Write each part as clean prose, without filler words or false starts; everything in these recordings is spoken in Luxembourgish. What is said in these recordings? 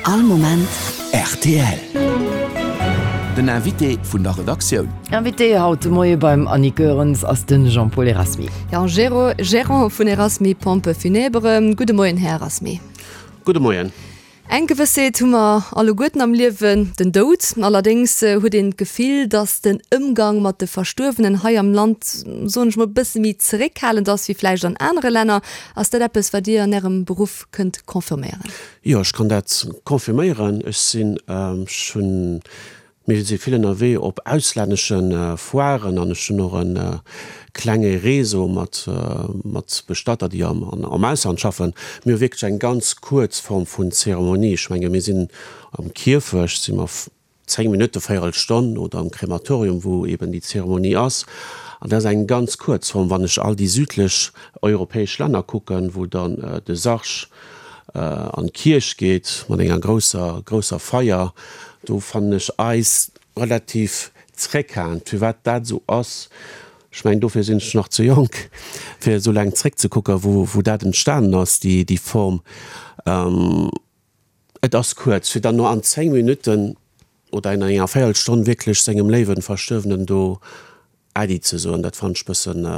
All Moment rtl. Den Invité vun der Redaktioun. Invité haut de Moie beim Annick Goerens ass de Jean-Paul Erasmy. Jo, Gérant vun Erasmy Pompes Funèbres. Gudde Moien, Här Erasmy. Gudde Moien. Eng Gewëssheet hu mer alleguerten am Liewen, den Doud. Allerdéngs huet een d'Gefill, datt den Ëmgang mat de Verstuerwenen hei am Land, soen ech mol, e bësse méi zeréckhalend ass wéi vläicht an anere Länner. Ass dat eppes, wat Dir an Ärem Beruff kënnt confirméieren? Jo, ech kann dat confirméieren. Ech sinn, ech hunn Mir si vill ënnerwee op auslännesche Foiren an ech hunn och e klenge Réseau mat mat Bestatter, déi am am Ausland schaffen. Mir hu wierklech eng ganz kuerz Form vun Zeremonie. Ech menge mir sinn am Kierfecht si mer 10 Minutte, véierel Stonn oder am Krematorium, wou eben déi Zeremonie ass. An dat ass eng ganz kuerz Form. Wann ech all déi südlech europäesch Länner kucken, wou dann de Sarg an d'Kierch geet mat enger grousser, grousser Feier, do fannen ech eis relativ zréckhalend. Firwat dat esou ass, ech mengen dofir sinn ech nach ze jonk, fir esou laang zréckzekucken, wou, wou dat entstanen ass, déi, déi Form. Et ass kuerz, fir dann no an 10 Minutten oder an enger Véierelstonn wierklech sengem léiwen Verstuerwenen do Äddi ze soen, dat fannen ech bëssen,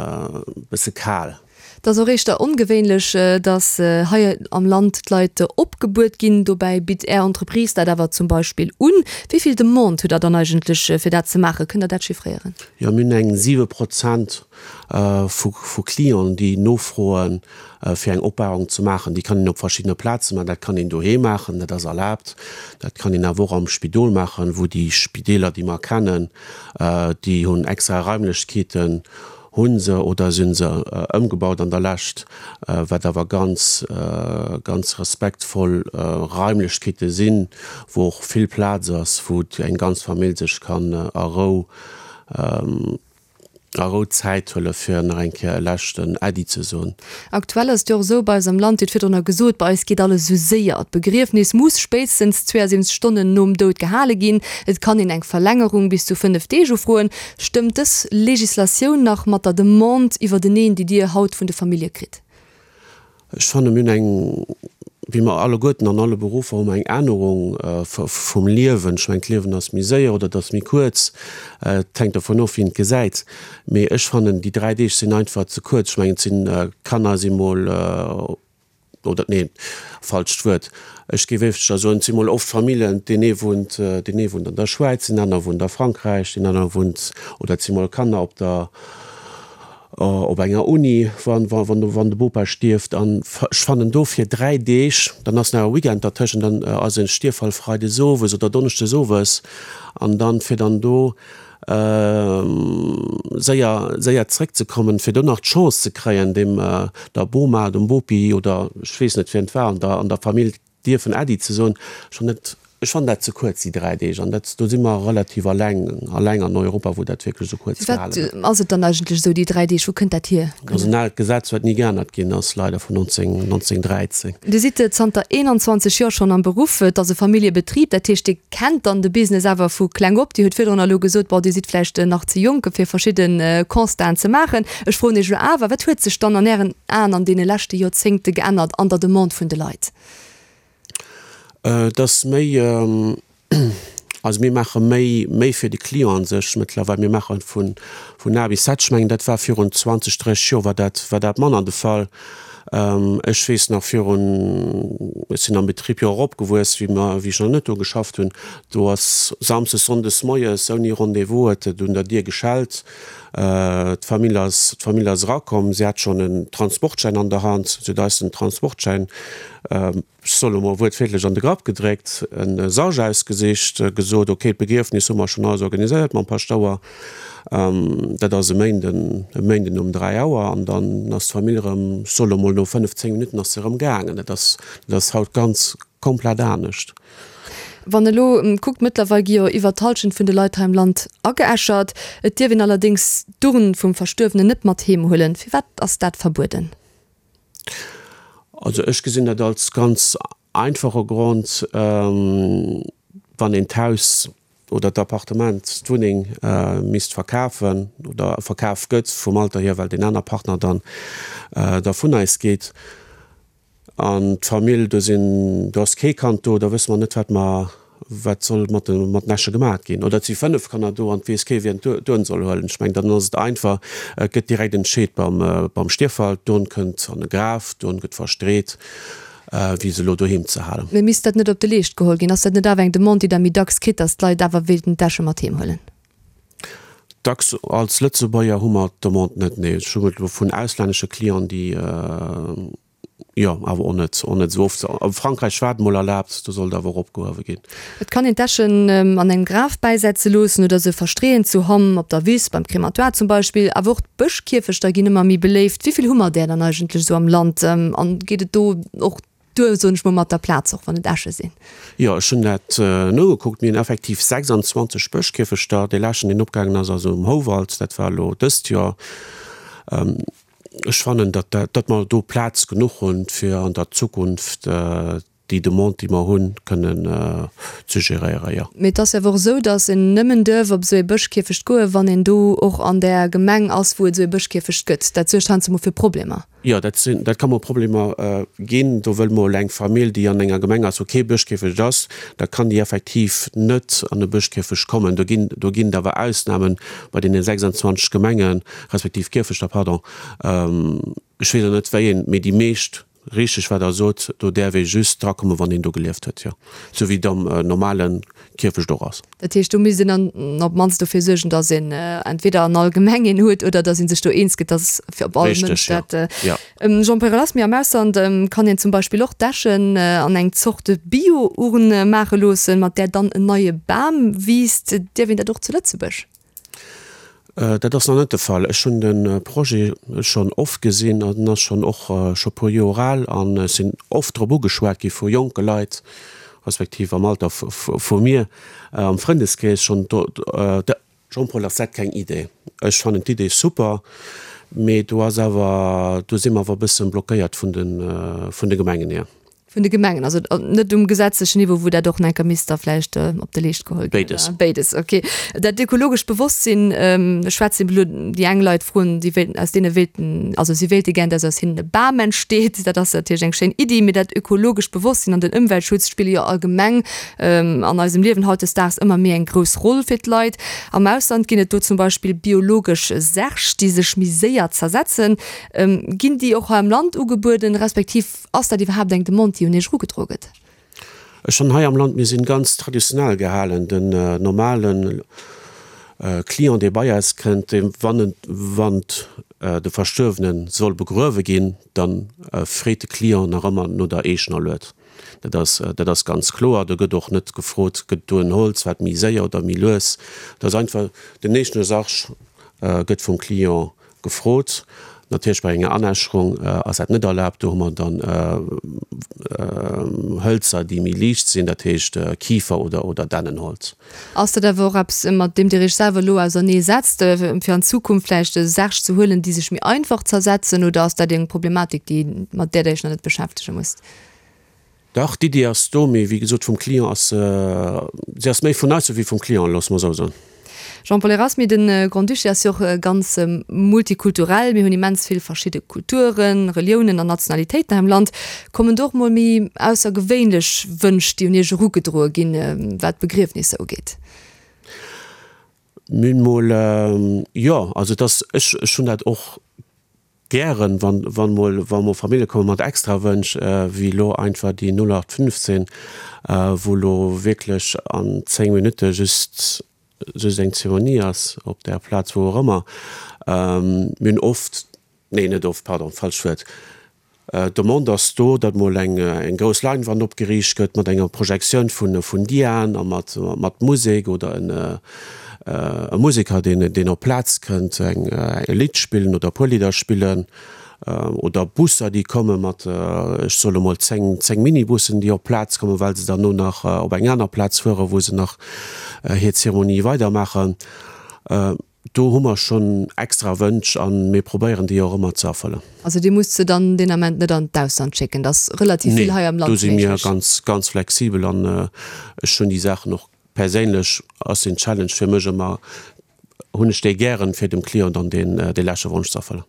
bësse kal. Et ass och éischter ongewéinlech, datt hei am Land d'Leit opgebuert ginn. Dobäi bitt Är Entreprise dat awer zum Beispill un. Wéi vill Demande hutt Der dann eigentlech, fir dat ze maachen? Kënnt Der dat chiffréieren? Jo, mir hunn eng 7 Prozent vu Clienten, déi nofroen, fir eng Opbahrung ze maachen. Déi kann een op verschiddene Plaze maachen. Dat kann een doheem maachen, dat ass erlaabt. Dat kann een awer och am Spidol maachen, wou déi Spideeler, déi mer kennen, déi hunn extra Raimlechkeeten, hu se oder si se ëmgebaut an der Lescht, wat awer ganz, ganz respektvoll Raimlechkeete sinn, wou och vill Plaz ass, wou eng ganz Famill sech kann a Rou a Rou Zäit huele fir nach eng Kéier e leschten Äddi ze soen. Aktuell ass et jo och esou bei eis am Land, Dir hutt virdrunner gesot, bei eis geet alles esou séier. D'Begriefnis muss spéitstens 72 Stonnen nom Doud gehale ginn. Et kann een eng Verlängerung bis zu 5 Deeg ufroen. Stëmmt dës Legislatioun nach mat der Demande iwwerteneen, déi Dir haut vun de Famillje kritt? Ech fanne mir hunn eng, wéi mer alleguerten an alle Beruffer hu mer eng Ännerung vum Liewen. Ech mengen d'Liewen ass méi séier oder et ass méi kuerz, et hänkt dovun of wien et gesäit. Mee ech fannen déi 3 Deeg sinn einfach ze kuerz. Ech mengen et sinn, d'Kanner si mol, oder nee, falscht Wuert, ech géif éischter soen, et si mol oft Familljen, deen ee wunnt, deen ee wunnt an der Schwäiz, deen aner wunnt a Frankräich, deen aner wunnt, oder et si mol Kanner op der, op enger Uni, wann, wann, wann de Bopa stierft. An ech fannen dofir 3 Deeg, dann ass nach e Weekend dertëschent, dann ass e Stierffall freides owes oder donneschdes owes, an dann, fir dann do séier, séier zréckzekommen, fir do nach d'Chance ze kréien, deem, der Boma, dem Bopi oder ech weess net wien et war an der, an der Famill, dierfen Äddi ze soen, schonn net, ech fannen dat ze kuerz, déi 3 Deeg, an dat, do si mer relativ alleng, alleng an Europa, wou dat wierklech esou kuerz Firwat gehale gëtt. ass et dann eigentlech esou, déi 3 Deeg, wou kënnt dat hier? Dat ass en aalt Gesetz, wat ni geännert ginn ass, leider, vun 19, 1913. Dir sidd zanter 21 Joer schonn am Beruff, et ass e Familljebetrib, dat heescht, Dir kennt dann de Business awer vu kleng op. Dir hutt virdrun elo gesot, bon, Dir sidd vläicht nach ze jonk, fir verschidde Constaten ze maachen. Ech froen Iech elo awer, Wat huet sech dann an Ären Aen an deene leschte Joerzéngte geännert an der Demande vun de Leit? Et ass méi, also mir maache méi, méi fir de Client a sech mëttlerweil. Mir maache vun, vun A bis Z. Ech mengen, dat war virun 20, 30 Joer war dat, war dat manner de Fall. Ech weess nach virun, ech sinn am Betrib jo och opgewuess, wéi mer, wéi ech nach net do geschafft hunn, do ass samsdes, sonndes moies ouni Rendez-vous huet et un der Dier geschellt. D'Famill ass, d'Famill ass erakomm, si hat schonn en Transportschäin an der Hand, si huet eis den Transportschäin, ech soe lo mol wuertwiertlech, an de Grapp gedréckt, e Sarg ausgesicht, gesot, ok, d'Begriefnis hu mer schonn alles organiséiert mam Paschtouer, dat ass e Méinden, e Méinden um 3 Auer, an dann ass d'Famill erëm, ech soe lo mol no 5, 10 Minutten ass se erëm gaangen. Dat ass, dat ass haut ganz komplett anescht. Wann elo kuckt, mëttlerweil gi jo iwwer d'Hallschent vun de Leit hei am Land ageäschert. Et dierf een allerdéngs d'Urn vum Verstuerwenen net mat heem huelen. Firwat ass dat verbueden? Also ech gesinn dat als ganz einfache Grond, wann een d'Haus oder d'Appartement, d'Wunneng misst verkafen oder verkaf gëtt vum Alter hier, well deen aner Partner dann da vun eis geet. An d'Famill, do sinn, do ass kee Kand do, da wësse mer net, wat mer, wat soll mat de, mat den Äsche gemaat ginn. Oder et si 5 Kanner do an et weess kee wien d'Urn soll huelen. Ech mengen, dann ass et einfach, et gëtt direkt entscheet beim, beim Stierffall, d'Urn kënnt an e Graf, d'Urn gëtt verstreet, wéi se elo doheem ze halen. Mee misst dat net op de Leescht geholl ginn? Ass dat net awer eng Demande, déi Der méi dacks kritt, datt d'Leit awer wéilten d'Äsche mat heem huelen? Dacks als Lëtzebuerger hu mer d'Demande net, nee. Ech hu et elo vun auslännesche Clienten, déi, jo, awer och net, och net esou oft. A Frankräich war et mol erlaabt, do soll et awer och opgehuewe ginn. Et kann een d'Äschen an engem Graf bäisetze loossen oder se verstreeën zu Hamm, op der Wiss, beim Krematoire zum Beispill. Awer och d'Bëschkierfechter ginn ëmmer méi beléift. Wéi vill hu mer där dann eigentlech esou am Land? An geet et do och Duer, soen ech mol, mat der Plaz, och wann et Äsche sinn. Jo, ech hunn dat nogekuckt. Mir hunn effektiv 26 Bëschkierfechter. Dee leschten, deen opgaangen ass, ass um Houwald. Dat war elo dëst Joer. Ech fannen, datt dat, datt mer do Plaz genuch hunn, fir an der Zukunft déi Demande, déi mer hunn, kënnen ze geréieren, jo. Mee et ass jo awer och esou, datt een nëmmen duerf op esou ee Bëschkierfecht goen, wann een do och an där Gemeng ass, wou et esou ee Bëschkierfecht gëtt. Dat suergt heiansdo mol fir Problemer. Jo, dat sinn, dat ka mol Problemer ginn. Do wëll mol eng Famill, déi an enger Gemeng ass, wou kee Bëschkierfecht ass, da kann déi effektiv net an e Bëschkierfecht kommen. Do ginn, do ginn et awer Ausnamen bei deene 26 Gemengen, respektiv Kierfechter, pardon. Ech weess elo net, wéi een, mee déi meescht, richteg wat Der sot, do däerf ee just drakommen, wann een do gelieft huet, jo. Sou wéi et am normale Kierfecht och ass. Dat heescht, do misst een dann op d'mannst dofir suergen, datt een entweder an all Gemeng een huet oder datt ee sech do eens gëtt, datt fir op all Mënsch dat. Jean-Paul Erasmy, Am Ausland kann een zum Beispill och d'Äschen an eng Zort Bio-Urn maache loossen, mat där dann en neie Bam wiisst. Dierf een dat och zu Lëtzebuerg? Dat ass nach net de Fall. Ech hunn de Projet schonn oft gesinn an en ass schonn och scho puer Joer al an ech sinn oft drop ugeschwat gi vu jonke Leit, respektiv am Alter vu mir, am Frëndeskrees schonn. Jean-Paul, ass dat keng Idee? Ech fannen d'Idee super, mee do ass awer, do si mer awer e bësse blockéiert vun de Gemengen hier. Vun de Gemengen, also net um gesetzlechen Niveau, wou dat och nach enker misst da vläicht op de Leescht geholl ginn. Béides. Béides, okay. Dat ökologescht Bewosstsinn, ech schwätzen elo déi eng Leit froen, déi wéilten, aus deene wéilten, also si wéilte gär, dass aus hinnen e Bam entsteet. Dat ass natierlech eng schéin Iddi, mee dat ökologescht Bewosstsinn an den Ëmweltschutz spille jo allgemeng an eisem Liewen hautdesdaags ëmmer méi eng grouss Roll fir d'Leit. Am Ausland ginn et do zum Beispill biologesch Särg, déi sech méi séier zersetzen. Ginn déi och hei am Land ugebueden, respektiv Ass dat iwwerhaapt eng Demande, déi un Iech erugedroe gëtt? Ech fannen hei am Land, mir sinn ganz traditionell gehalen. Den normalen Client, dee bei eis kënnt, dee wann en, wann de Verstuerwene soll begruewe ginn, da freet de Client nach ëmmer no der eegener Lued. Dat ass, dat ass ganz kloer. Do gëtt och net gefrot, gëtt do en Holz, wat méi séier oder méi lues. Dat ass einfach, den eegene Sarg gëtt vum Client Gefrot. Natierlech bei enger Anäscherung ass dat net erlaabt. Do hu mer dann Hëlzer, déi méi liicht sinn, dat heescht Kifer oder oder Dännenholz. Ass dat awer och eppes, mat deem Dir Iech selwer elo ausernee setzt, fir an Zukunft vläicht Särg ze huelen, déi sech méi einfach zersetzen, oder ass dat eng Problematik, déi, mat där Der Iech nach net beschäftege musst? Dach, d'Iddi ass do, mee wéi gesot, vum Client ass se, se ass méi vun eis ewéi vum Client, loosse mer esou soen. Jean-Paul Erasmy, De Grand-Duché ass jo och ganz multikulturell. Mir hunn immens vill verschidde Kulturen, Reliounen an Nationalitéiten hei am Land. Kommen do och mol méi aussergewéinlech Wënsch, déi un Iech erugedroe ginn, wat d'Begriefnisser ugeet? Mir hunn mol, jo, also et ass, ech, ech hunn dat och Gären, wann, wann mol, wa mol Famillje komme mat extra Wënsch, wéi elo einfach déi 0815, wou elo wierklech an 10 Minutte just, just eng Zeremonie ass op där Plaz, wou och ëmmer. Mir hunn oft, nee net oft, pardon, falscht Wuert, d'Demande ass do, datt mol eng, eng grouss Leinwand opgeriicht gëtt mat enger Projektioun vun, vun Diaen a mat, mat Musek oder en, E Museker, deen op d'Plaz kënnt, eng e Lidd spillen oder e puer Lidder spillen, oder Busser, déi komme mat, ech soe lo mol 10, 10 Minibussen, déi op d'Plaz kommen, well se dann no nach op eng aner Plaz fueren, wou se nach hir Zeremonie weidermaachen. Do hu mer schonn extra Wënsch a mir probéieren déi och ëmmer ze erfëllen. Also Dir musst se dann deen Ament net an d'Ausland schécken, et ass relativ vill hei am Land méiglech? Nee, do si mir ganz, ganz flexibel an ech hunn déi Saachen och Perséinlech ass den Challenge fir mech ëmmer. hunn ech déi gären, fir dem Client dann deen dee leschte Wonsch ze erfëllen.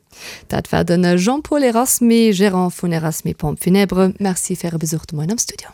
Dat war de Jean-Paul Erasmy, Gérant vun Erasmy Pompes Funèbres. Merci fir Äre Besuch de Moien am Studio.